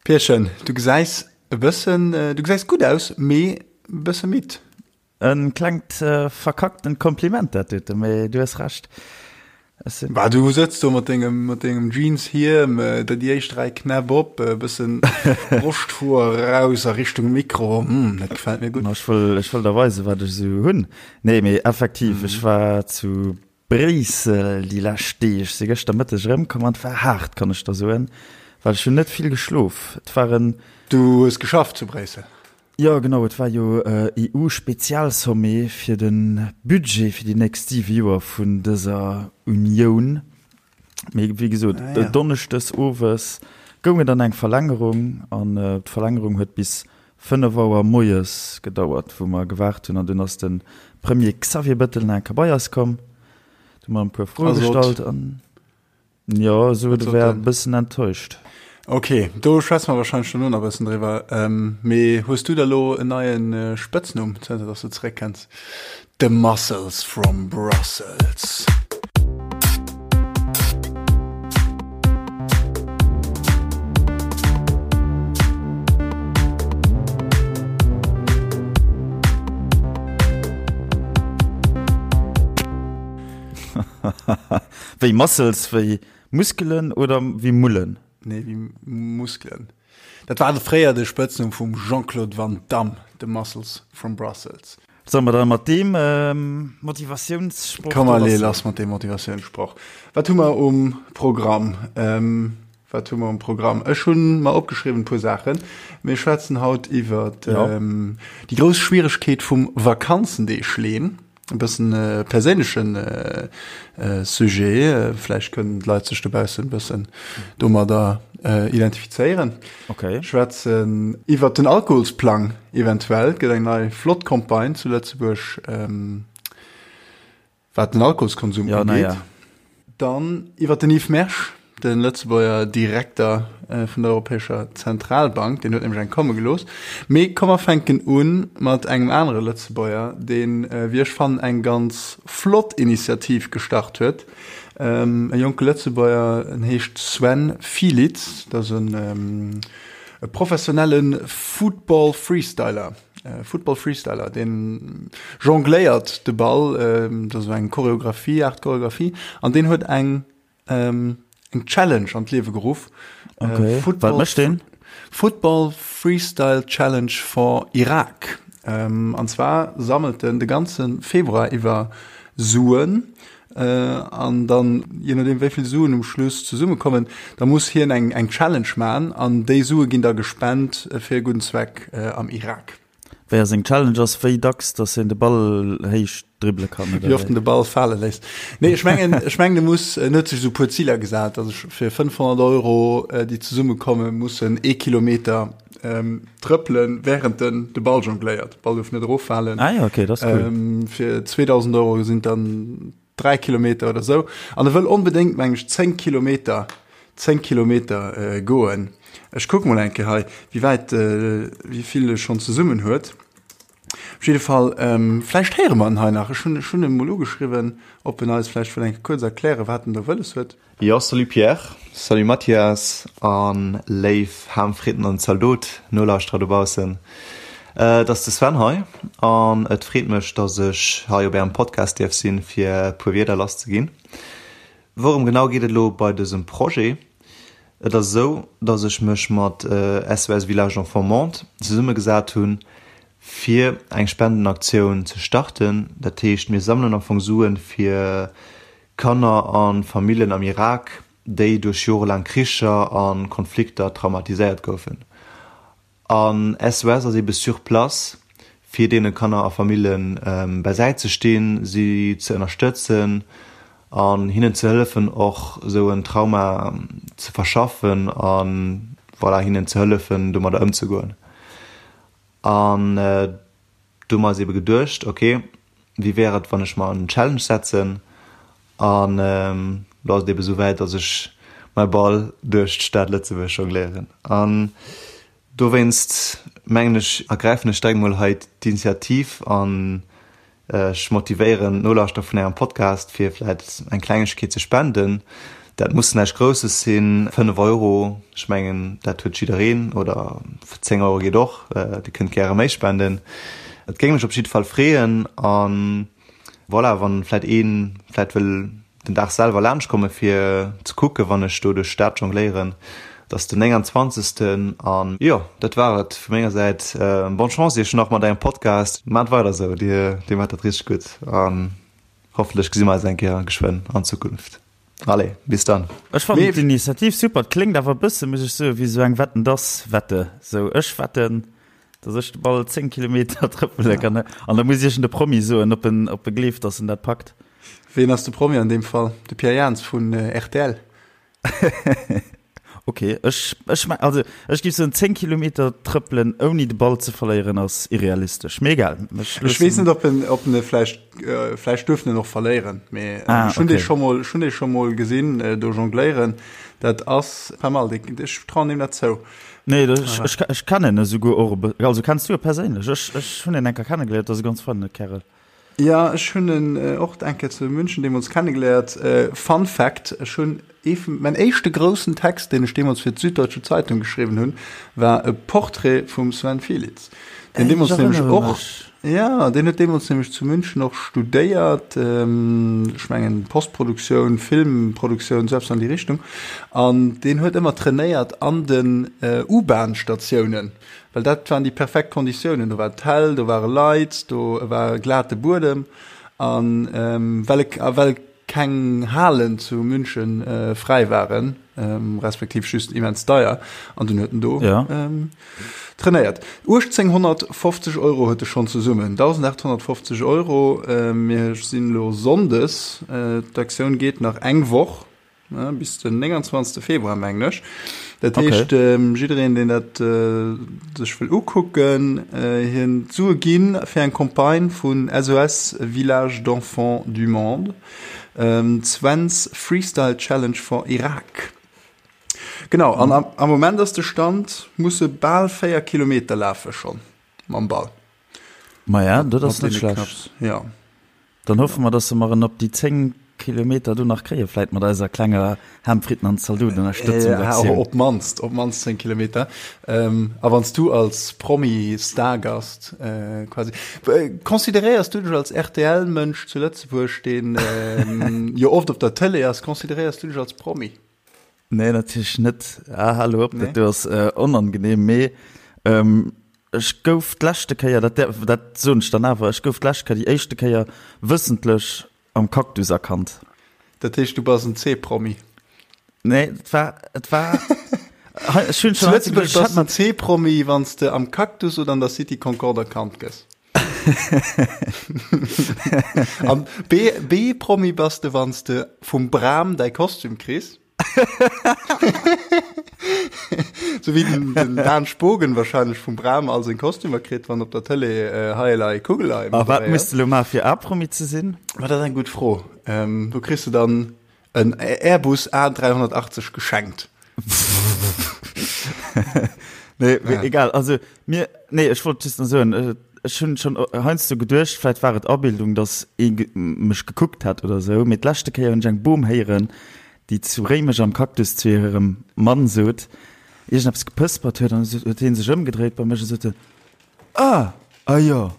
Pierchen, du gesäis e bëssen, du gesäis gutt aus, mee e bësse midd. E klengt verkacktent Kompliment dat dote, mee du hues Recht. Ech sinn. Bah, du sëtz do mat dengem, mat dengem Jeanshiem, der déi éischt 3 Knäpp op, e bëssen Broschthoer eraus a Richtung Mikro, hm, dat gefält mir gutt. Ma ech wëll, ech wëll der weisen, wat ech esou hunn. Nee, mee effektiv, ech war zu Bréissel déi lescht Deeg, si gëschter Mëtteg erëmkomm an et war haart, kann ech der soen, well ech hunn net vill geschlof. Et war en. Du hues geschafft zu Bréissel? Jo genau, et war jo EU-Spezialsommet fir de Budget fir déi nächst 7 Joer vun dëser Unioun. Mee wéi gesot, donneschdes owes goung et an eng Verlängerung an d'Verlängerung huet bis 5 Auer moies gedauert, wou mer gewaart hunn an dunn ass de Premier Xavier Bettel nach eng Kéier bei eis komm. Du hu mer e puer Froe gestallt an. Jo, esou et wär e bëssen enttäuscht. Ok, do schwätze mer wahrscheinlech dono nach e bëssen driwwer. Mee hues du da lo en neie Spëtznumm, zënter dass du zeréck kenns? The Muscles from Brussels. Wéi Muscles, wéi Muskelen oder wéi Mullen? Nee, wéi Muskelen. Dat war fréier de Spëtznumm vum Jean-Claude Van Damme, de Muscles from Brussels. Solle mer da mat deem Motivatiounssproch Komm, allez, lass mat deem Motivatiounssproch. Wat hu mer um Programm? Wat hu mer um Programm? Ech hu mer opgeschriwwen e puer Saachen. Mir schwätzen haut iwwer déi grouss Schwieregkeet vum Vakanzendeeg leen. E bëssen e perséinlechen Sujet. Vläicht kënnen d'Leit sech dobaussen e bëssen domadder identifizéieren. Okay. Schwätzen iwwert den Alkoholsplang eventuell. Et gëtt eng nei flott Campagne zu Lëtzebuerg, wat den Alkoholskonsum ugeet. Ja, ja. Dann iwwer den Yves Mersch, de Lëtzebuerger Direkter vun der Europäescher Zentralbank, deen huet nämlech eng komme gelooss. Mee komm mer fänken u mat engem anere Lëtzebuerger, deen, wéi ech fannen, eng ganz flott Initiativ gestart huet. E jonke Lëtzebuerger, en heescht Sven Fielitz, dat ass e professionelle Football-Freestyler. Football Freestyler, deen jongléiert de Ball, dat ass esou eng Choreographie, Art Choreographie, an deen huet eng eng Challenge an d'Liewe geruff. Okay. Football, Wat mécht deen? Football Freestyle Challenge for Iraq. An zwar sammelt en de ganze Februar iwwer Suen An dann, je nodeem wéi vill Suen um Schluss zesummekommen, da muss hien eng eng Challenge man an déi Sue ginn da gespent fir e gudden Zweck am Irak. Wéi ass seng Challenge ass, wéi dacks dass hien de Ball héich dribbele kann, oder wéi? Wéi oft en de Ball fale léisst. Nee, ech mengen, ech mengen e muss, en huet sech esou e puer Ziler gesat, also fir 500 Euro, déi zesummekommen, muss en ee Kilometer trëppelen, wärend en de Ball jongléiert. De Ball duerf net eroffalen. Ah ja, okay, dat ass cool. Ähm, fir 2000 Euro sinn dann 3 Kilometer oder sou. An e wëll onbedéngt, meng ech, 10 Kilometer, 10 Kilometer äh, goen. Ech kuck mol eng Kéier hei, wéi wäit, äh, wéi vill e schonn zesummen huet. Op jidde Fall, ähm, vläicht héiere mer en hei nach. Ech hunn, ech hunn e mol ugeschriwwen, ob en eis vläicht wëll eng Kéier kuerz erklären, wat en do wëlles huet. Jo, salut Pierre, salut Mathias an léif Ham, Fritten an Zaldot Nolauschterer dobaussen. Et ass de Sven hei an et freet mech, dass ech hei op ärem Podcast dierf sinn, fir e puer Wierder lass ze ginn. Wourëm genau geet et elo bei dësem Projet? Et ass esou, dass ech mech mat SOS Village Enfants Monde zesummegesat hunn, fir eng Spendenaktioun ze starten. Dat heescht, mir sammelen am Fong Suen, fir Kanner a Familljen am Irak, déi duerch jorelaang Kricher a Konflikter traumatiséiert goufen. An SOS ass ebe sur place, fir deene Kanner a Famillje bäisäit ze stinn, si ze ënnerstëtzen an hinnen ze hëllefen, och esou en Trauma ze verschaffen a voilà, hinnen ze hëllefen, domadder ëmzegoen. An Do hu mer eis ebe geduecht, ok, wéi wär et, wann ech mer en Challenge setzen? An elo ass et ebe souwäit, datt ech mäi Ball duerch d'Stad Lëtzebuerg jongléieren. An dowéinst mengen ech, ergräifen ech direkt mol hei d'Initiativ an ech motivéieren d'Nolauschterer vun Ärem Podcast, fir vläit eng Klengegkeet ze spenden. Dat muss näischt Grousses sinn, 5 Euro, ech mengen dat huet jiddereen, oder 10 Euro geet och, Dir kënnt gäre méi spenden. Et géing mech op jidde Fall freeën a voilà, wann vläit ee vläit wëll den Dag selwer laanscht komme fir ze kucke wann ech do duerch d'Stad jongléieren. Et ass den 29. An jo, dat war et vu menger Säit. Bonne Chance iech nach mat ärem Podcast. Maacht weider esou, dir maacht dat richteg gutt an hoffentlech gesi mer eis eng Kéier geschwënn an Zukunft. Allez, bis dann. Ech fannen d'Initiativ super. Et kléngt awer e bësse, muss ech soen, wéi esou eng Wetten dass Wette. Sou, ech wetten, dass ech de Ball 10 Kilometer trëppele kann. An da muss iergend e Promi soen, ob en, ob e gleeft, dass en dat packt. Ween ass de Promi an deem Fall? De Pierre Jans vun rtl? Ok, ech, ech meng, also ech géif soen, 10 Kilometer trëppelen ouni de Ball ze verléieren ass irrealistesch. Mee egal, ech Ech weess net, ob en, ob en e vläicht, vläicht duerf en en och verléieren, mee ah, ech hunn okay. dee scho mol, ech hunn dee scho mol gesinn do jongléieren. Dat ass pas mal, dee, ech trauen deem dat zou. Nee, dat, ech, ech, ech kennen e souguer och e bë-, also kenns du e perséinlech? Ech, ech hunn en eng Kéier kennegeléiert, dat ass e ganz feine Kärel. Jo, ech hunn en och eng Kéier zu München deemools kennegeléiert. Fun Fact, Ech hunn ee vun, mäin éischte groussen Text, deen ech deemools fir d'Süddeutsche Zeitung geschriwwen hunn, war e Portrait vum Sven Fielitz, deen deemools nämlech och, jo, deen huet deemools nämlech zu München och studéiert, ech mengen Postproduktioun, Filmproduktioun, sou eppes an déi Richtung, an deen huet ëmmer trainéiert an den U-Bahn-Statiounen. Well dat waren déi perfekt Konditiounen. Do war et hell, do ware Leit, do war glate Buedem. An well e, a well keng Halen zu München fräi waren, respektiv just immens deier, an dunn huet en do trainéiert. 1850 Euro huet e schonn zesummen, 1.850 Euro. Mir sinn elo Sonndes, d'Aktioun geet nach eng Woch. Bis den 29. Februar mengen ech. Dat heescht okay. ähm, jiddereen deen dat äh, sech wëll ukucken, äh, hien d'Sue ginn fir eng Campagne vun SOS Village d'Enfants du Monde. Ähm, Sven's Freestyle Challenge for Irak. Genau an am, am Moment ass de Stand musse bal 4 Kilometer lafe schon mam Ball. Ma ja, dat ass net schlecht. Ja. Dann hoffe mer, dass se mer en op déi 10 Kilometer do nach kréien, vläit mat eiser klenger Ham Fritten an Zaldot Ënnerstëtzungsaktioun. Op d'mannst, op d'mannst 10 Kilometer. A wann s du als Promi-Stargast quasi, consideréiers du dech als RTL-Mënsch zu Lëtzebuerg, deen jo oft op der Tëlee ass, consideréiers du dech als Promi? Nee, natierlech net. Ah, hal op, dat do ass onangenehm. Mee ech gouf d'leschte Kéier, dat dat soen ech dann awer, ech gouf d'lescht Kéier, déi éischte Kéier wëssentlech am Cactus erkannt. Dat heescht, du bass en C-Promi? Nee, et war, et war, ech hunn schon. Zu Lëtzebuerg bass en C-Promi, wann s de am Cactus oder an der City Concorde erkannt gëss. An B-Promi bass de, wann s de vum Bram däi Kostüm kriss. Sou wéi den, den Dan Spogen wahrscheinlech vum Bram all seng Kostümer kritt, wann op der Tëlee äh, Heielei Kugelei A wat moderéiert. muss de lo maache fir A-Promi ze sinn? Ma dat ass eng gutt Fro. Ähm, do kriss de dann en Airbus A380 geschenkt. Nee, ja. egal. Also mir nee, ech wollt just soen, äh, ech hunn schon heiansdo geduecht, vläit war et Abildung, dass ee ge mech gekuckt hat oder sou, mee d'leschte Kéier hunn ech eng Bom héieren, déi zu Réimech am Cactus zu hirem Mann sot, iergendeppes gepëspert huet an huet hie sech ëmgedréit bei mech a sot, Ah, ah jo.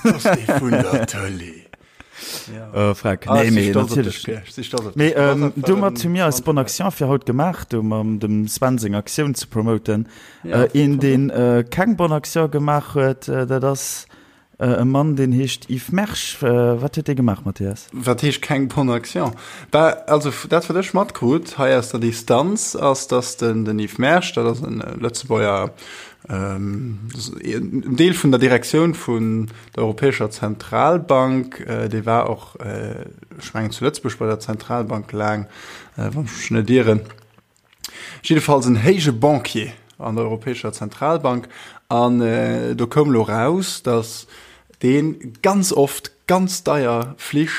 Das dee vun der Tëlee. Ja. Äh, Freck. Ah, nee, nee, natierlech. Mee ähm, domat hu mir eis Bonne Action fir haut gemaach, do mam dem Sven seng Aktioun ze promoten. Ja, äh, een, deen äh, keng Bonne Action gemaach huet, äh, dat ass äh, e Mann, deen heescht Yves Mersch. Äh, wat huet dee gemaach, Mathias? Wat heescht keng Bonne Action? Bah, also dat wat ech matkrut hei aus der Distanz ass, dass den, den Yves Mersch, dat ass en äh, Lëtzebuerger En Deel vun der Direktioun vun der Europäescher Zentralbank, dee war och, ech mengen zu Lëtzebuerg bei der Zentralbank laang, wann ech mech net ieren. Jiddefalls en héije Banquier an der Europäescher Zentralbank. An do koum elo raus, datt dee ganz oft ganz deier Flich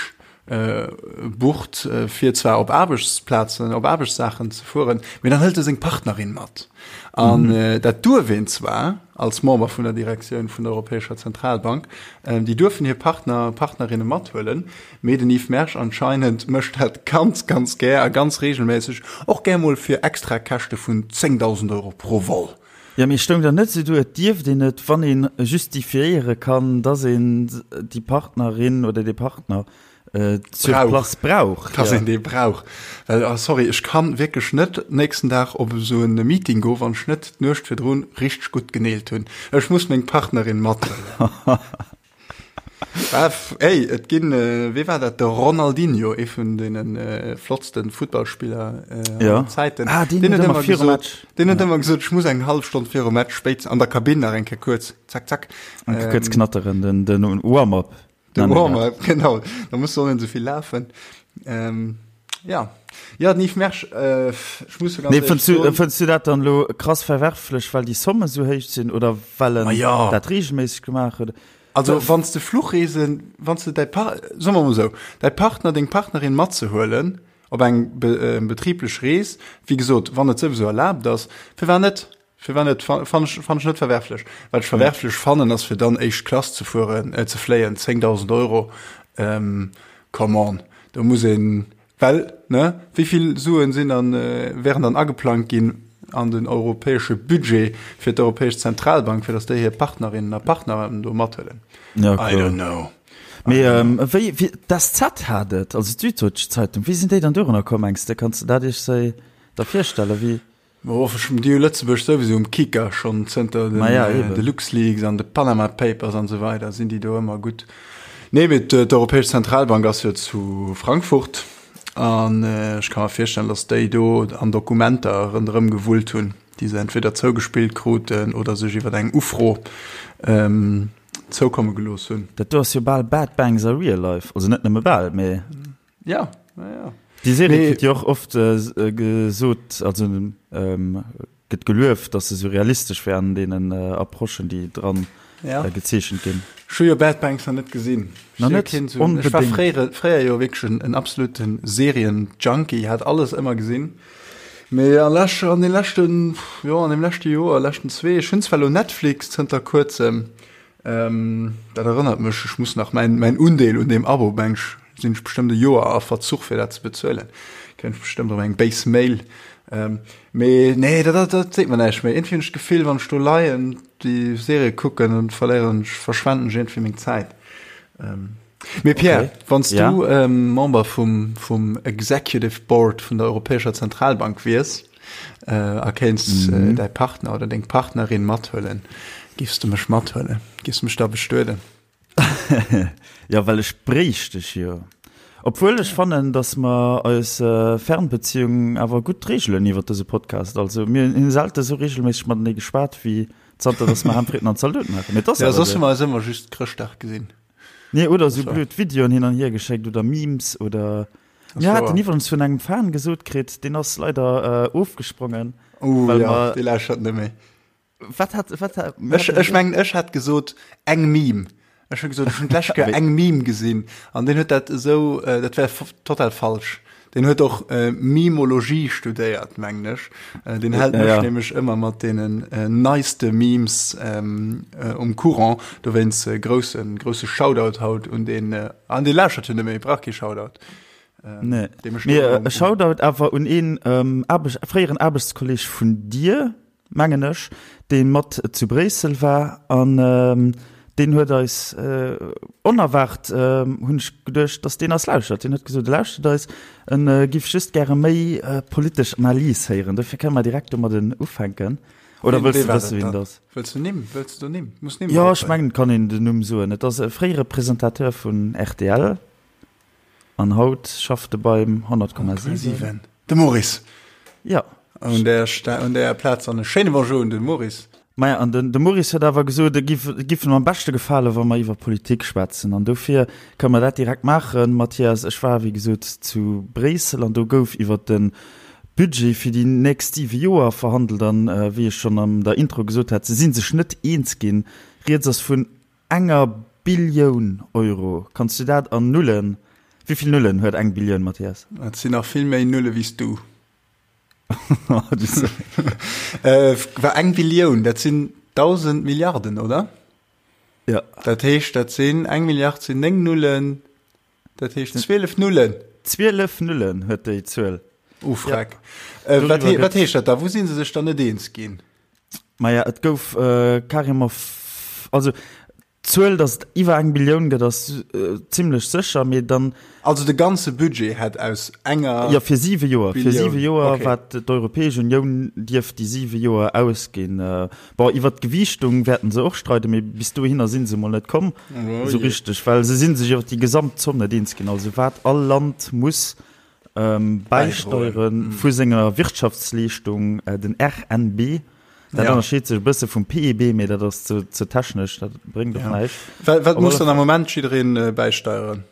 bucht, fir zwar op Aarbechtsplazen, op Aarbechtssaachen ze fueren, mee dann hëlt e seng Partnerin mat. An dat duerf een zwar als Member vun der Direktioun vun der Europäescher Zentralbank, déi duerfen hir Partner, Partnerinne mathuelen, mee den Yves Mersch anscheinend mécht dat ganz, ganz gär a ganz reegelméisseg, och gär mol fir extra Käschte vun 10.000 Euro pro Vol. Jo, mee stoung dann net esou do, et dierft een et, wann ee justifiéiere kann, dass een déi Partnerin oder dee Partner sur place brauch. Dass een dee brauch. Well, ah, sorry, ech kann wierklech net nächsten Dag op esou en Meeting goen, wann ech net d'Nuecht virdrun richteg gutt geneelt hunn. Ech muss meng Partnerin mathuelen. Ah, ey, et ginn, wee war dat, de Ronaldinho, ee vun deene flottste Futtballspiller aller Zäiten. Ah, deen huet ëmmer virum Match. Deen huet ëmmer gesot, ech muss eng hallef Stonn virum Match spéitstens an der Kabinn nach eng Kéier kuerz, zack, zack. Eng Kéier kuerz knatteren, den, den Warm-up. Den Warm-up, genau. Da muss och net esou vill lafen. Ähm, ja. Ja, den Yves Mersch, äh, ech muss jo ganz Nee, fënns du, fënns du dat dann elo krass verwerflech, well déi Somme sou héich sinn oder well en ja. dat regelméisseg gemaach huet? Also, wann s de Fluchreesen, wann s de däi Par-, soe mer mol esou, däi Partner, deng Partnerin matzehuelen op eng be, betriblech Rees, wéi gesot, wann et souwisou erlaabt ass, firwat net? Firwat net? Fann ech, fann ech net verwerflech. Wat ech verwerflech fannen, ass fir dann éischt Klass ze fueren, äh, ze fléien, 10.000 Euro, ähm, come on, do muss een, well, ne, wéi vill Suen sinn dann, äh, wären dann ageplangt ginn an den europäesche Budget fir d'Europäesch Zentralbank, fir datt déi hir Partnerinnen a Partner do mathuelen? Ja, I don't know. Mee ähm, wéi, wéi, d'SZ hat et, also d'Süddeutsche Zeitung, wéi sinn déi dann dorunner komm, mengs de? Kanns de dat iech sou da virstellen, wéi? Oh, ech hunn déi Lëtzebuerg souwisou um Kicker, schonn zënter den, ja, de LuxLeaks an de Panama Papers an esou weider sinn déi do ëmmer gutt. Nee, mee d'Europäesch Zentralbank ass jo zu Frankfurt an ech ka mer virstellen, datt déi do an Dokumenter ronderëm gewullt hunn, déi se entweder zougespillt kruten oder sech iwwer eng Ufro ähm, zoukomme gelooss hunn. Dat do ass jo bal Bad Banks a Real Life, also net nëmme bal, mee. Ja, ja, ja. Déi Serie kritt jo och oft gesot, also gëtt gelueft, datt se sou realistesch wär an deenen Approchen, déi dran gezeechent ginn. Ech hu jo Bad Banks nach net gesinn. Nach net? Onbedéngt. Ech war fréier, fréier jo wierklech en absolute Serien-Junkie, hat alles ëmmer gesinn. Mee an lech, an de leschten, jo, an deem leschte Joer, leschten zwee, ech hunn zwar elo Netflix zënter kuerzem, Dat erënnert mech, ech muss nach mäin, mäin Undeel un deem Abo, meng ech, sinn ech bestëmmt e Joer a Verzuch fir dat ze bezuelen. Kréien ech bestëmmt erëm eng béis Mail. Mee nee, dat, dat, dat seet mer näischt méi. Iergendwéi hunn ech d'Gefill, wann ech do leien, déi Serie kucken, dann verléieren ech, verschwenden ech iergendwéi meng Zäit. Mee Pierre, okay. wann s du ja. ähm, Member vum, vum Executive Board vun der Europäescher Zentralbank wiers äh, a kéints mhm. äh, däi Partner oder deng Partnerin mathuelen, giffs du mech mathuelen? Giffs du mech da bestueden? ja, well ech bréicht dech jo. Obwuel ech fannen, dass mer eis äh, Fernbeziehung awer gutt reegelen iwwer dëse Podcast. Also mir hunn selte sou regelméisseg matenee geschwat wéi zanter dass mer Ham, Fritten an Zaldoten maachen. Mee das ja, soss hu mer eis ëmmer just Chrëschtdag gesinn. Nee, oder sou blöd Videoen hin an hier geschéckt oder Memes oder. Mir haten iwwerens vun engem Fan gesot kritt, deen ass leider äh, ofgesprongen. Oh, ja, mer, dee lauschtert net méi. Wat hat, wat hat, ech, ech mengen, ech hat gesot eng Meme. Ech hu gesot, ech hunn d'lescht Kéier eng Meme gesinn an deen huet dat esou, äh, dat wär total falsch. Deen huet och äh, Mimologie studéiert, mengen ech. Äh, deen hält mech ja, ja. nämlech ëmmer mat deenen äh, neiste Memes ähm, äh, um Courant. Dowéinst äh, groussen, grousse Shoutout haut un den, äh, an dee lauschtert jo net méi, brauch kee Shoutout. Ähm, nee. Mee, äh, Shoutout awer un een ähm, Aarbecht, fréieren Aarbechtskolleg vun dir, mengen ech, dee mat zu Bréissel war an deen huet eis onerwaart, hunn ech geduecht, datt deen eis lauschtert. Deen huet gesot, e lauschtert eis, en giff just gäre méi politesch Analys héieren. Dofir kënne mer direkt domadden ufänken. Oder wëlls de wësse wien et ass? Wëlls de Nimm? Wëlls de Nimm? Muss Nimm Jo, ech mengen, et kann een den Numm soen. Et ass e fréiere Presentateur vun rtl. An haut schafft e beim 100,7. De Maurice. Ja. Un der, un der Plaz an e schéine Bonjour un de Maurice. Maja, an den, de Maurice huet awer gesot, et giff, et giff em am beschte gefalen, wa mer iwwer Politik schwätzen. An dofir kënne mer dat direkt maachen, Mathias. Ech war, wéi gesot, zu Bréissel an do gouf iwwer de Budget fir déi nächst siwe Joer verhandelt. An, wéi ech schonn an der Intro gesot hat, se si sech net eens ginn. Rieds ass vun Enger Billioun Euro. Kanns du dat an Nullen? Wéi vill Nullen huet eng Billioun, Mathias? Et sinn nach vill méi Nulle wéi s du. War eng Billioun, dat sinn 1.000 Milliarden, oder? Ja. Dat heescht, dat sinn eng Milliard sinn 9 Nullen, dat heescht 12 Nullen. 12 Nullen huet déi Zuel. Oh, freck. Ja. Äh, wat, he, wat heescht dat da? Wou sinn se sech dann net eens ginn? Maja, et gouf äh, carrément, also D'Zuel, datt et iwwer eng Billioun gëtt, ass zimlech sécher, mee dann. Also de ganze Budget hätt aus enger. Jo, fir siwe Joer. Fir siwe Joer, wat d'Europäesch Unioun dierf déi siwe Joer ausginn. Bon, iwwer d'Gewiichtung wäerten se och streiden, mee bis dohinner si se emol net komm esou richteg, well se si sech iwwer déi Gesamtzomm net eens ginn, also wat all Land muss bäisteiere vu senger Wirtschaftsleeschtung, den RNB. Dat ja. ënnerscheet sech e bësse vum PIB, mee dat ass ze, ze technesch, dat bréngt och ja. näischt. Wat, wat muss dann am Moment jiddereen äh, bäisteieren?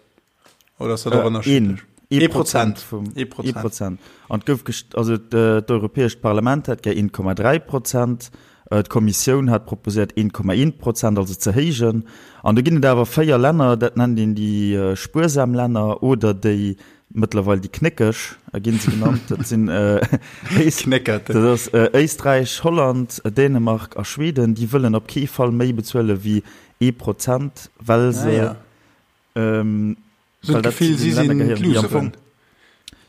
Oder ass dat och äh, ënnerschiddlech? Ee Prozent vum ee Prozent. Prozent. An gouf also d'Europäescht Parlament hat gär 1,3 Prozent, äh, d'Kommissioun hat proposéiert 1,1 Prozent, also ze héijen. An do ginn et awer véier Länner, dat nennt een déi äh, spuersam Länner oder déi Mëttlerweil déi Knéckeg ginn se genannt. Dat sinn dat ass Éisträich, Holland, Dänemark a Schweden. Déi wëllen op kee Fall méi bezuele wéi ee Prozent, well se well dat zu deene Länner gehéieren, déi am Fong,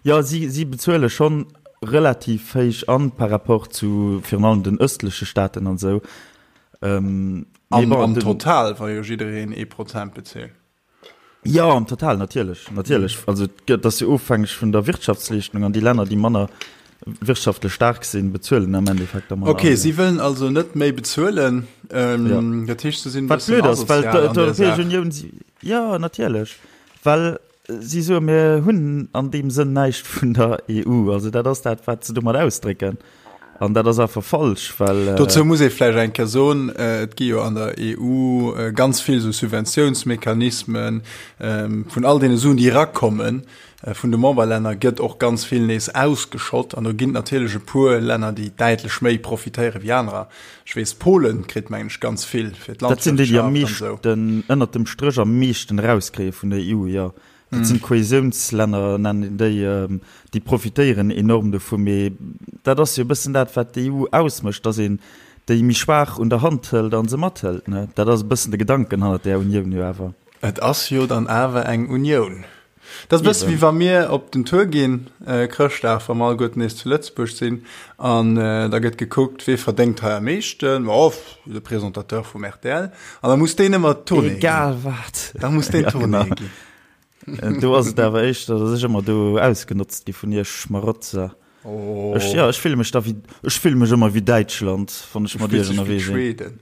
jo, si si bezuele schonn relativ héich an par rapport zu virun allem den ëstleche Staaten an esou. Mee bon, am Total, wa jo jiddereen ee Prozent bezilt. Jo, am Total natierlech, natierlech. Also et ass jo ofhängeg vun der Wirtschaftsleeschtung an déi Länner, déi manner wirtschaftlech staark sinn, bezuelen am Endeffekt da manner. Ok, si wëllen also net méi bezuelen. Ja. Dat heescht, se sinn e bëssen asozial an der Saach. Wat blöd ass, well d'Europäesch Unioun, jo natierlech, well si soen, mir hunn an deem Sënn näischt vun der EU. Also dat ass dat, wat se domat ausdrécken. An dat ass einfach falsch, well. Dozou muss ee vläicht eng Kéier soen, et gi jo an der EU ganz vill esou Subventiounsmechanismen. Vun all deene Suen, déi erakommen vun de Memberlänner, gëtt och ganz vill nees ausgeschott. An do ginn et natierlech e puer Länner, déi däitlech méi profitéiere wéi anerer. Ech weess, Polen kritt, mengen ech, ganz vill fir Dat sinn déi, déi am meeschten, ënnert dem Stréch am meeschten erauskréie vun der EU, jo. Dat sinn d'Kohäsiounslänner, nennen een déi, déi profitéieren enorm dovu. Mee dat ass jo e bëssen dat, wat d'EU ausmécht, datt een déi méi schwaach un der Hand hëlt a se mathëlt. Dat ass e bëssen de Gedanken hannert där Unioun jo awer. Et ass jo dann awer eng Unioun. Dat ass e bësse wéi wa mir op den Tour ginn, Chrëschtdag, wa mer alleguerten nees zu Lëtzebuerg sinn, an da gëtt gekuckt, wee verdéngt hei am meeschten. Oh, de Présentateur vum rtl. An da muss deen ëmmer d'Tournée ginn. Egal wat. Da muss deen d'Tournée ginn. Do ass et awer éischter, datt ech ëmmer do ausgenotzt gi vun iech Schmarotzer. Oh. Ech, ja, ech fille mech da wéi, ech fille mech ëmmer wéi Däitschland, wann ech mat iech ënnerwee sinn. Schweden.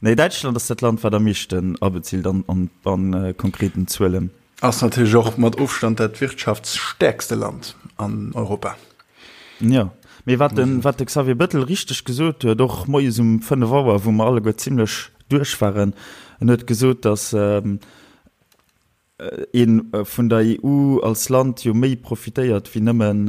Nee, Däitschland ass dat Land, wat am meeschten abezilt an, an, an konkreten Zuelen. Ass natierlech och mat Ofstand dat wirtschaftsstäerkste Land an Europa. Jo, mee wat de, wat de Xavier Bettel richteg gesot huet, och moies um 5 Auer, wou mer alleguer zimlech duerch waren, en huet gesot, datt ee vun der EU als Land jo méi profitéiert wéi nëmmen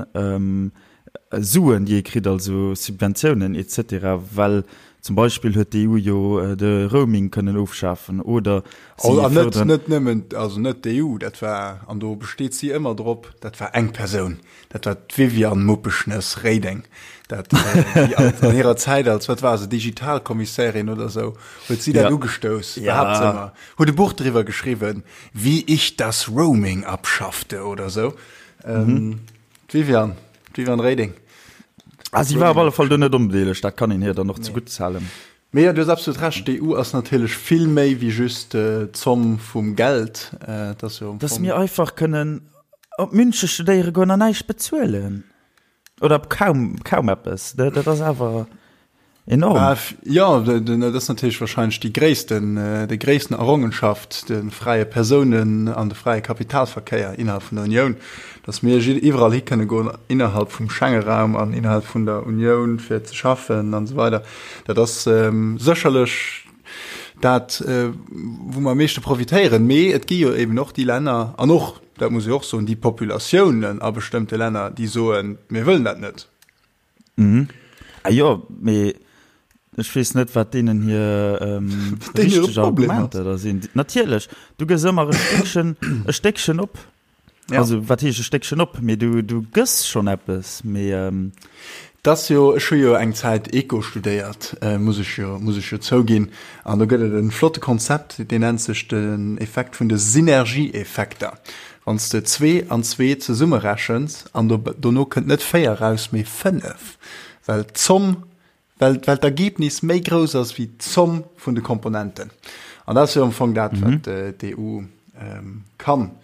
Suen, déi ee kritt, also Subventiounen et cetera, well zum Beispill huet d'EU jo de Roaming kënnen ofschafen oder si Oh, an net, fërderen. net nëmmen, also net d'EU, dat war, an do besteet si ëmmer drop, dat war eng Persoun, dat war d'Viviane Muppeschnëss Reding, dat déi als, an hirer Zäit als, wat war se, Digitalkommissärin oder esou, huet si dat Ja. ugestouss, Ja. behaapt se ëmmer, huet e Buch driwwer geschriwwen, Wie ich das Roaming abschaffte oder esou. Ähm, D'Viviane, d'Viviane Reding. Ah, si war op alle Fall do net onbedeelegt, dat kann een hir dann och zegutt halen. Mee jo, du hues absolut Recht, d'EU ass natierlech vill méi wéi just d'Zomm vum Geld. Et ass jo am Dass mir einfach kënnen op Münche studéiere goen an näischt bezuelen. Oder kaum, kaum eppes. Dat ass awer enorm. Jo, dat ass natierlech wahrscheinlech déi gréissten, déi gréissten Errongenschaft, de fräie Persounen an de fräie Kapitalverkéier innerhalb vun der Unioun, datt mir iwwerall hi kënne goen innerhalb vum Schengeraum an innerhalb vun der Unioun fir ze schaffen an esou weider. Dat ass sécherlech dat, wou mer am meeschte profitéieren. Mee et gi jo eben och déi Länner an och, dat muss ee och soen, déi Populatiounen a bestëmmte Länner, déi soen, mir wëllen dat net. Mhm. Ah jo, mee ech weess net, wat deenen hir ähm, richteg Argumenter da sinn. Natierlech, du gëss ëmmer e Stéckchen, e Stéckchen op. Ja. Also wat heescht e Stéckchen op? Mee du, du gëss schonn eppes, mee ähm. T'ass jo, ech hu jo eng Zäit Eco studéiert, muss ech jo, muss ech jo zouginn. An do gëtt et e flotte Konzept, deen nennt sech den Effekt vun de Synergieeffekter. Wann s de zwee an zwee zesummerechens an do, dono kënnt net véier eraus, mee fënnef, well d'Zomm Well, well d'Ergebnis méi grouss ass wéi d'Zomm vun de Komponenten. An dat ass jo am Fong dat, wat d'EU kann.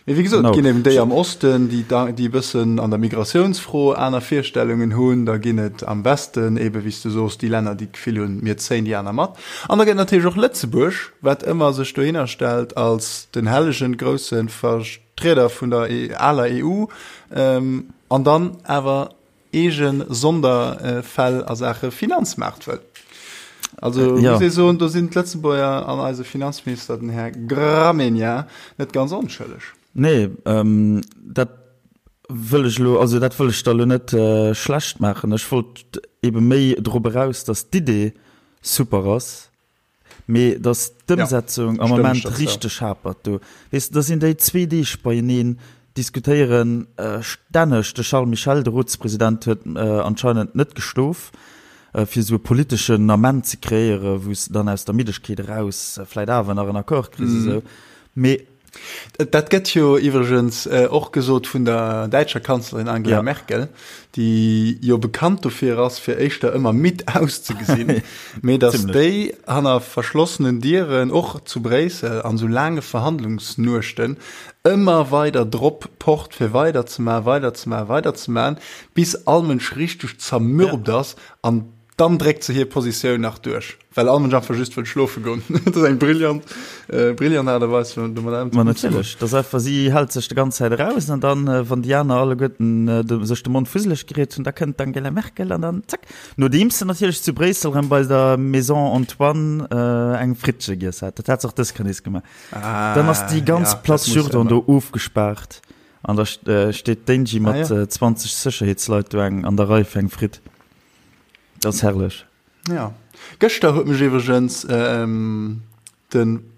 Mee wéi gesot, et ginn eben déi am Osten, déi, déi e bëssen an der Migratiounsfro aner Virstellungen hunn. Da ginn et am Westen eben, wéi s du soos, déi Länner, déi d'Gefill hunn, mir zéien déi aner mat. An da gëtt et natierlech och Lëtzebuerg, wat ëmmer sech dohinner stellt als den hellegen, grousse Vertrieder vun der aler EU an dann awer eege Sonderfäll a Saache Finanzmaart wëll. Also ja. muss ee soen, do sinn d'Lëtzebuerger an eise Finanzminister, den Här Gramegna, net ganz onschëlleg. Nee, ähm, dat wëll ech elo, also dat wëll ech der elo net äh, schlecht maachen. Ech wollt ebe méi drop eraus, datt d'Idee super ass, Mee dass d'Ëmsetzung am Moment richteg hapert do. Weess de, da sinn déi zwee Deeg beieneen, diskutéiere stänneg. De Charles Michel, de Rotspresident, huet anscheinend net geschlof, fir esou e politeschen Ament ze kreéieren, wou s de dann aus der Middegkeet eraus vläit awer nach en Accord kriss esou. Mee. Dat gëtt jo iwwregens och gesot vun der däitscher Kanzlerin Angela ja. Merkel, déi jo bekannt dofir ass, fir éischter ëmmer midd auszegesinn, mee datt déi hanner verschlossenen Dieren, och zu Bréissel, an esou laange Verhandlungsnuechten ëmmer weider drop pocht, fir weiderzemaachen, weiderzemaachen, weiderzemaachen, bis all Mënsch richteg zermürbt ass an Dann dréckt se hir Positioun nach duerch, well all Mënsch einfach just wëll schlofe goen. Dat ass eng brillant, brillant Aart a Weis, fir domat ëmzegoen. Ma natierlech, dat ass einfach, si hält sech de ganz Zäit eraus an dann, wann déi aner alleguerten sech de Mond fusseleg geriet hunn, da kënnt d'Angela Merkel an dann zack. Nodeems se natierlech zu Bréissel erëm bei der Maison Antoine eng Frittche giess hat. Dat hat se och dës Kéier nees gemaach. Dann ass déi ganz Place Jourdan do ofgespaart an da steet d'Angie mat 20 Sécherheetsleit do eng an der Rei fir eng Fritt. Dat ass herrlech. Ja. Gëschter huet mech iwwregens den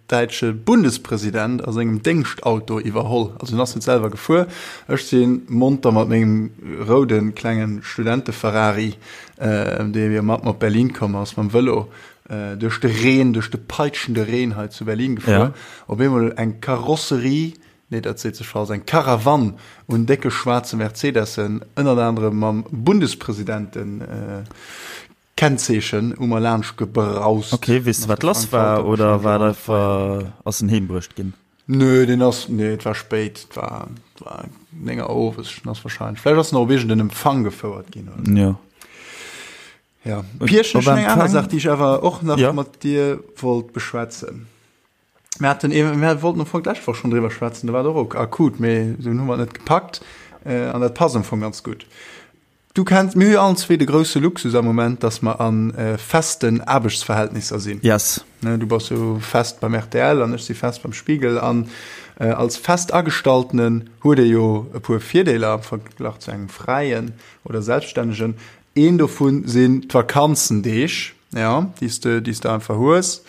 däitsche Bundespresident a sengem Déngschtauto iwwerholl. Also en ass net selwer gefuer. Ech si monter mat mengem roude klenge Studente-Ferrari, dee jo mat mer op Berlin komm ass, mam Vëlo duerch de Reen, duerch de peitschende Reen hei zu Berlin gefuer. Op eemol eng Karosserie Nee, dat seet sech falsch, eng Karawann un décke schwaarze Mercedessen, ënnert anerem mam Bundespresidenten-Kennzeechen, u mer laanscht gebraust. Ok, weess de wat lass war oder war et einfach, ass en heem bruecht ginn? Nö, deen ass, nee, et war spéit, et war, et war 9 Auer owes, en ass wahrscheinlech, vläicht ass en och op iergend en Empfang gefouert ginn oder sou. Jo. Ja, Pierchen, ech hunn eng aner Saach, déi ech awer och nach mat dir wollt beschwätzen. Mir haten eben, mir wollten am Fong d'lescht Woch schonn driwwer schwätzen, do war et och akut, mee dunn hu mer et net gepackt an dat passt am Fong ganz gutt. Du kenns, mir hu jo allen zwee de grousse Luxus am Moment, dass mer a festen Aarbechtsverhältnisser sinn. Yes. Ne, du bass jo fest beim rtl an ech si fest beim Spiegel an als Festagestalltenen huet ee jo e puer Virdeeler am Verglach zu engem Fräien oder Selbststännegen. Een dovun sinn d'Vakanzendeeg. Ja, déi s de, déi s de einfach hues,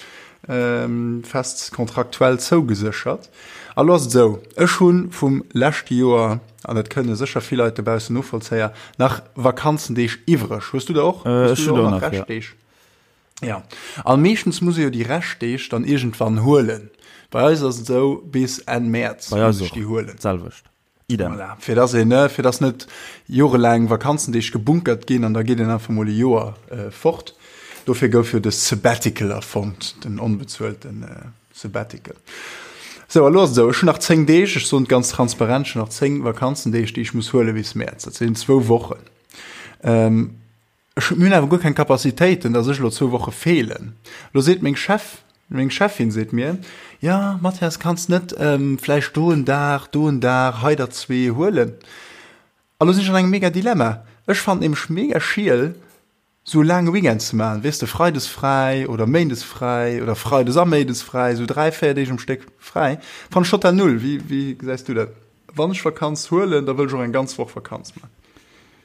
fest kontraktuell zougeséchert. A lo ass et esou, ech hu vum leschte Joer, an dat kënne sécher vill Leit dobaussen novollzéier, nach Vakanzendeeg iwwreg. Hues du der och? Hues du der och nach Reschtdeeg? Ja. A meeschtens muss ee jo déi Reschtdeeg dann iergendwann huelen. Bei eis ass et esou, bis Enn Mäerz muss ech déi huelen. D'selwecht. Idem. Voilà. Fir dass een, ne, fir dass net jorelaang Vakanzendeeg gebunkert ginn an da geet een einfach mol e Joer äh, fort. Dofir gouf jo de Sabbatical erfonnt, den onbezuelten äh, Sabbatical. Sou, a lo ass et esou, ech hunn nach 10 Deeg, ech soen et ganz transparent, ech hunn nach 10 Vakanzendeeg, déi ech muss huele bis Mäerz. Dat sinn zwou Wochen. Ähm, Ech hunn, mir hunn awer guer keng Capacitéiten, dass ech elo zwou Woche feelen. Elo seet meng Chef, meng Cheffin seet mir, Jo, Mathias, kanns net vläicht do en Dag, do en Dag, hei der zwee huelen? A lo sinn ech an engem mega Dilemma. Ech fannen nämlech mega schiel, sou e laange Weekend ze maachen, weess de, freides fräi oder méindes fräi oder freides a méindes fräi, sou dräi, véier Deeg um Stéck fräi, fannen ech total null. Wéi, wéi gesäis du dat? Wann ech Vakanz huelen, da wëll ech och eng ganz Woch Vakanz maachen.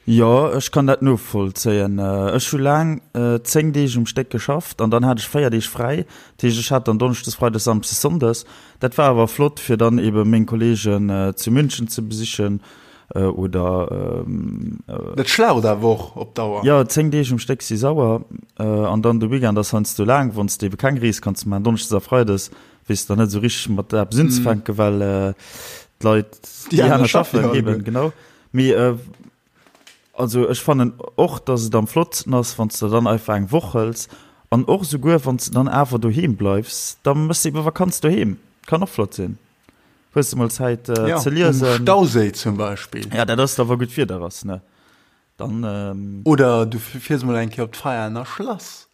Jo, ech kann dat novollzéien. Ech hu laang 10 Deeg um Stéck geschafft an dann hat ech 4 Deeg fräi. Dat heescht, ech hat dann Donneschdes, Freides, Samsdes, Sonndes. Dat war awer flott, fir dann ebe meng Kolleegen zu München ze besichen. Oder. Dat schlaucht awer och op Dauer. Jo, 10 Deeg um Stéck si sauer. An dann de Weekend ass heiansdo laang, wann s de ebe keng Rees kanns maachen. Donneschdes a Freides weess de dann net esou richteg mat eppes unzefänken, well d'Leit, déi aner schaffen eben, genau. Mee also ech fannen och, dass et am flottsten ass, wann s de dann einfach eng Woch hëls. An och esouguer wann s de dann awer doheem bleifs, da méchs de ebe Vakanz doheem. Kann och flott sinn. Hues de mol Zäit ja, ze liesen? Um Stauséi zum Beispill. Ja, dat ass da wa gutt Wieder ass, ne? Dann, ähm Oder du fiers mol eng Kéier op d'Veianer Schlass.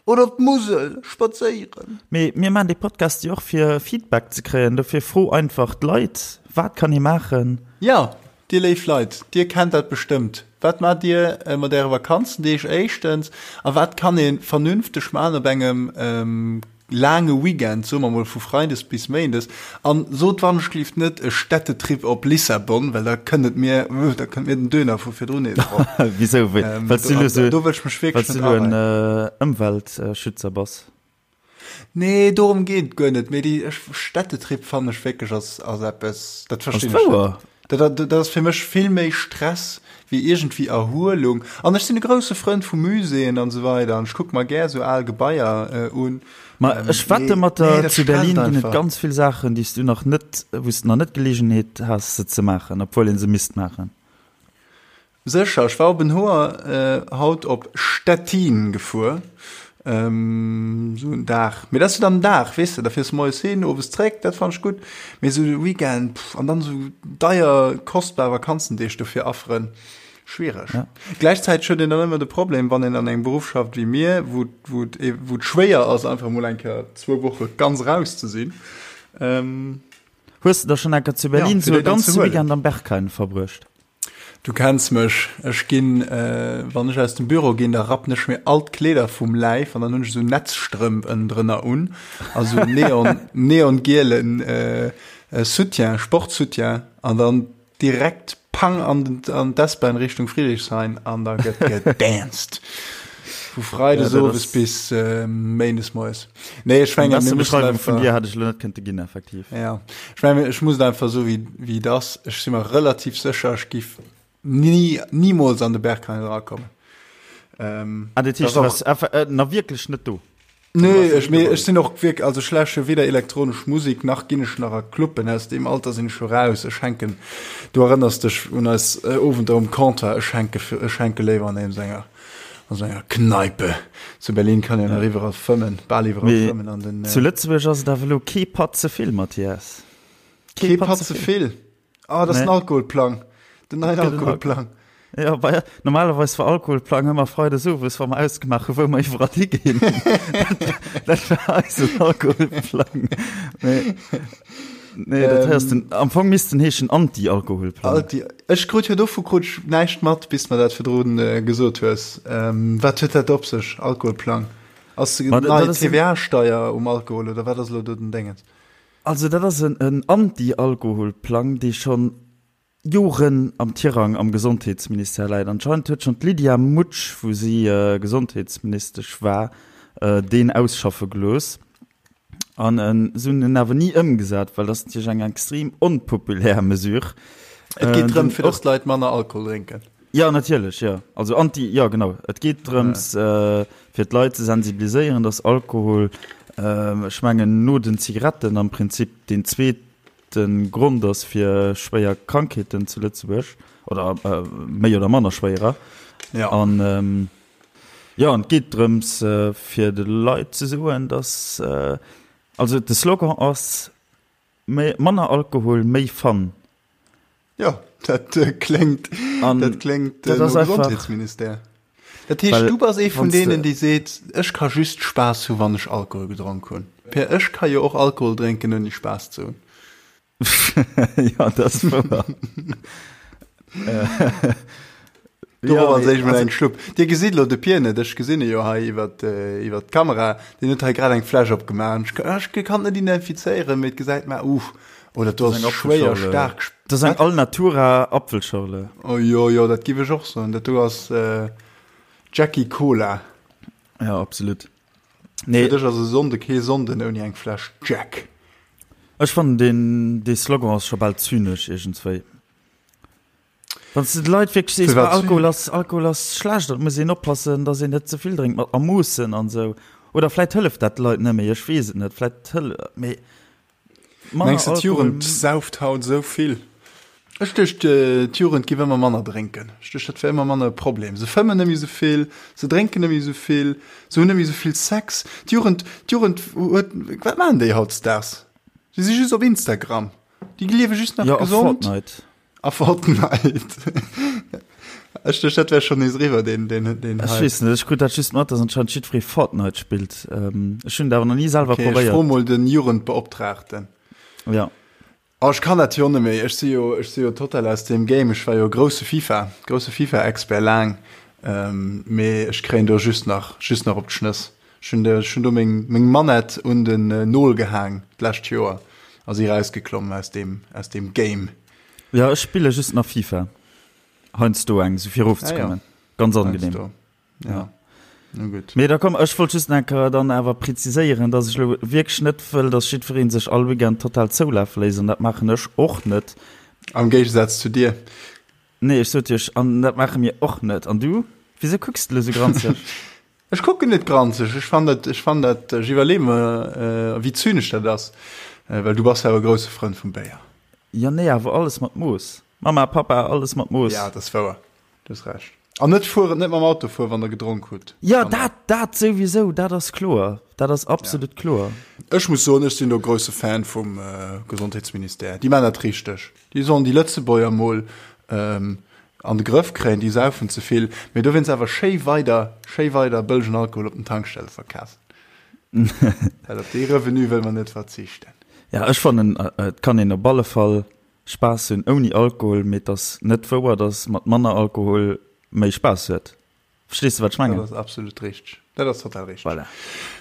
Oder op d'Musel spadséieren. Mee mir maachen dee Podcast jo och fir Feedback ze kréien. Dofir fro einfach d'Leit, wat kann ee maachen? Ja, dir léif Leit, dir kennt dat bestëmmt. Wat maacht dir mat äre Vakanzendeeg éischtens? A wat kann ee vernünfteg maachen op engem laange Weekend, soe mer mol vu Freides bis Méindes, an sot wannechgelift net e Städtetrip op Lissabon, well da kënnt et mir, da kënnt mir den Döner vu virdrun nees erop. Wisou? Well s du elo sou, do wëll ech mech wierklech net areien. En Ëmweltschützer bass? Nee, dorëm geet et guer net, mee déi Städtetrip fannen ech wierklech ass, ass eppes, dat verstinn ech net. Dat, dat ass fir mech vill méi Stress wéi iergendwéi Erhuelung. An ech sinn e grousse Frënd vu Muséeën an esou weider an ech kucke mer gär esou al Gebaier un. Ma ech wette mat der, zu Berlin ginn et ganz vill Saachen, déi s du nach net, wou s du nach net d'Geleegenheet has se ze maachen, obwuel ee se misst maachen. Sécher, ech war op en Hoer haut op Stettin gefuer, esou en Dag, mee dat ass jo dann en Dag, weess de, da fiers de moies hin, owes zréck, dat fannen ech gutt, mee esou e Weekend, pff, an dann esou deier, kostbar Vakanzendeeg dofir afferen, schwiereg. Ja. Gläichzäiteg huet een dann ëmmer de Problem, wann een an engem Beruff schafft wéi mir, wou, wou et, wou et schwéier ass, einfach emol eng Kéier zwou Woche ganz raus ze sinn. Hues de da schonn eng Kéier zu Berlin esou e ganze Weekend am Berghain verbruecht? Du kenns mech, ech ginn, wann ech aus dem Büro ginn, da rappen ech mir all d'Kleeder vum Läif an dann hunn ech esou Netzstrëmp ënnendrënner un a sou neon, neongielen Soutien, Sportsoutien an dann direkt pang an den, an d'S-Bahn Richtung Friedrichshain an da gëtt gedanced. Vu Freides owes bis Méindes moies. Nee, ech mengen, mir mussen einfach. Vun dir hat ech lo net kënnte ginn, effektiv. Ja, ech mengen, ech muss et einfach esou wéi, wéi et ass. Ech si mer relativ sécher, ech giff ni, nimools an de Berghain erakommen. Ähm, ah, dat heescht, du warst äh, na wierklech net do? Nee, ech, mee ech sinn och wierk, also ech läsche weder elektronesch Musik, nach ginn ech nach a Cluben, aus deem Alter sinn ech scho raus. Ech hänken, du erënners dech un eis äh, Owender um Comptoir, ech hänke, ech hänke léiwer an engem senger An sou enger Kneipe zu Berlin kann een nach iwwerall fëmmen, bal iwwerall fëmmen an den. Zu Lëtzebuerg ass et awer elo kee Patt ze vill, Mathias. Kee Patt ze vill? Ah, dat ass den Alkoholplang. Den neien Alkoholplang. Ja, bei, normalerweis war Alkoholplang ëmmer freides owes, wa mer ausgemaach hu wou mer iwwerall higinn. Dat war eisen Alkoholplang. Mee. Nee, dat heißt den, am Fong misst den heeschen Anti-Alkoholplang. Anti, ech krut jo dovu krut ech näischt mat, bis mer dat virdrun äh, gesot hues. Ähm, wat huet dat op sech, Alkoholplang? Ass Ma, nei dat ass en- TVA-Steier um Alkohol oder wat ass elo do den Déngens? Also dat ass en, en Anti-Alkoholplang, dee schonn Joren am Tirang am Gesondheetsministère läit. Anscheinend huet schonn d'Lydia Mutsch, wou si Gesondheetsministesch war, deen ausschaffe gelooss. An se hunn en awer ni ëmgesat, well dat ass natierlech eng extrem onpopulär Mesure. Et geet drëm, fir datt d'Leit manner Alkohol drénken. Jo, natierlech, jo. Also anti, jo genau. Et geet drëms, fir d'Leit ze sensibiliséieren, datt Alkohol, ech mengen no den Zigaretten am Prinzip deen zweet De Grond ass fir schwéier Krankheeten zu Lëtzebuerg, oder méi oder manner schwéierer. Ja. An jo, an et geet drëms fir de Leit ze soen, datt, also de Slogan ass, méi, manner Alkohol, méi Fun. Jo, dat kléngt, dat kléngt no Gesondheetsministère. Dat heescht, du bass ee vun deenen, déi seet, ech ka just Spaass hu wann ech Alkohol gedronk hunn. Per ech ka jo och Alkohol drénken ouni Spaass ze hunn. Jo, dat ass wouer. Dorop als éischt mol eng Schlupp. Dir gesitt elo de Pier net, ech gesinn e jo hei iwwer iwwer d'Kamera. Deen huet hei grad eng Fläsch opgemaach. Ech ech kann et net identifizéieren, mee et gesäit mer, uh, oh dat do ass schwéier staark. Dat ass eng Alnatura Apfelschorle. Oh jo, jo, dat giff ech och soen. Dat do ass Jackie Cola. Ja, absolut. Nee. Fir dech ass e Sonnde kee Sonnden ouni eng Fläsch Jack. Ech fannen deen dee Slogan ass scho bal zynesch iergendswéi. Wann s de de Leit wierklech sees, Firwat? Alkohol ass, Alkohol ass schlecht an et muss een oppassen, datt een net ze vill drénkt, mat a Moossen an esou. Oder vläit hëlleft dat de Leit net méi, ech weess et net. Vläit hëll, mee manner Mengs de, Alkohol. d'Jugend sauft haut esou vill? Ech duecht, d'Jugend giff ëmmer manner drénken. Ech duecht, dat wär ëmmer manner e Problem. Se fëmmen net méi esou vill, se drénken net méi esou vill, se hunn net méi esou vill Sex. D'Jugend, d'Jugend huet, wat maachen déi hautdesdaags? Déi si just op Instagram. Déi liewe just nach Jo, a gesond. Fortnite. A Fortnite. Ech duecht, dat wär schonn nees eriwwer, deen, deen, deen Ech Hype. weess net, ech krut dat just mat, dass anscheinend jiddweree Fortnite spillt. Ech hunn et awer nach ni selwer Okay, ech probéiert. fro mol den Jugendbeoptraagten. Ja. Oh, ech kann dat jo net méi. Ech si jo, ech si jo total aus deem Game. Ech war jo grousse FIFA, grousse FIFA-Expert laang, mee ech kréien do just nach, just nach op d'Schnëss. Ech hunn, ech hunn do meng, meng Manette un den Nol gehaang d'lescht Joer a si rausgeklommen aus deem, aus deem Game. Jo, ech spille just nach FIFA. Heiansdo eng, sou fir erofzekommen. Ganz angenehm. Heiansdo. Ja. Na gutt. Mee da komm, ech wollt just nach eng Kéier dann awer preziséieren, dass ech elo wierklech net wëll, dass jiddweree sech all Weekend total zoulafe léisst, an dat maachen ech och net. Am Géigesaz zu dir. Nee, ech sot iech, an dat maache mir och net. An du? Wisou kucks de elo sou granzeg? Ech kucken net granzeg, ech fann dat, ech fann dat, ech iwwerleeë mer, wéi zynesch dat ass, well du bass jo awer e grousse Frënd vum Béier. Jo, nee, awer alles mat Mooss. Mama, Papa, alles mat Mooss. Ja, dat ass wouer. Du hues Recht. An net fueren, net mam Auto fueren, wann der gedronk hutt. Jo, dat, dat souwisou, dat ass kloer. Dat ass absolut kloer. Ech muss soen, ech sinn do grousse Fan vum Gesondheetsministère. Déi maachen dat richteg. Déi sollen déi Lëtzebuerger mol an de Grëff kréien, déi saufen ze vill, mee dowéinst awer schéi weider, schéi weider bëllegen Alkohol op den Tankstelle verkafen. Well op dee Revenu wëlle mer net verzichten. Jo, ech fannen, et kann een op alle Fall Spaass hunn ouni Alkohol, mee et ass net wouer, dass mat manner Alkohol méi Spaass huet. Verstees de wat ech mengen? Dat ass absolut richteg. Dat ass total richteg. Voilà.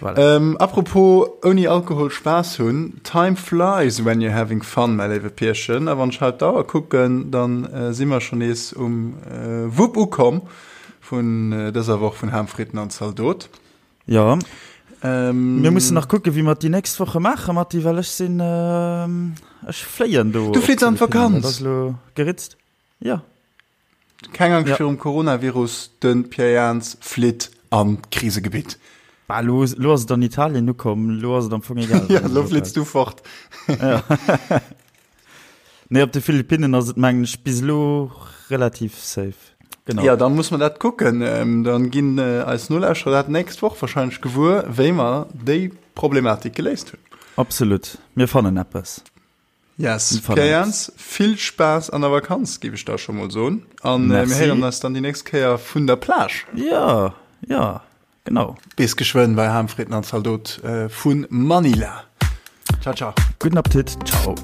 Voilà. Ähm, apropos ouni Alkohol Spaass hunn, Time flies when you're having fun, mäi léiwe Pierchen. A wann ech haut d'Auer kucken, dann äh, si mer schon nees um äh, Wupp ukomm vun äh, dëser Woch vun Ham, Fritten an Zaldot. Jo. Ähm, Mir mussen nach kucken, wéi mer et déi nächst Woche maachen, Matti, well ech sinn, ech fléien do. Du flitt an d'Vakanz? Dat ass elo geritzt. Jo. Keng Angscht ja. virum Coronavirus, de Pierre Jans flitt an d'Krisegebitt. Bah, lo, lo ass et an Italien ukomm, lo ass et am Fong egal. ja, lo flitts du fort. ja. Nee, op de Philippinnen ass et mengen ech bis elo relativ safe. Genau. Ja, dann muss man dat kucken. Ähm, dann ginn äh, eis Nolauschterer dat nächst Woch wahrscheinlech gewuer, wéi mer déi Problematik geléist hunn. Absolut. Mir fannen eppes. Yes. Pierre Jans, vill Spaass an der Vakanz, géif ech da scho mol soen. An äh, mir héieren eis dann déi nächst Kéier vun der Plage. Ja, ja. Genau. Bis geschwënn bei Ham, Fritten an Zaldot vun Manila. Ciao, ciao. Gudden Appetit. Ciao.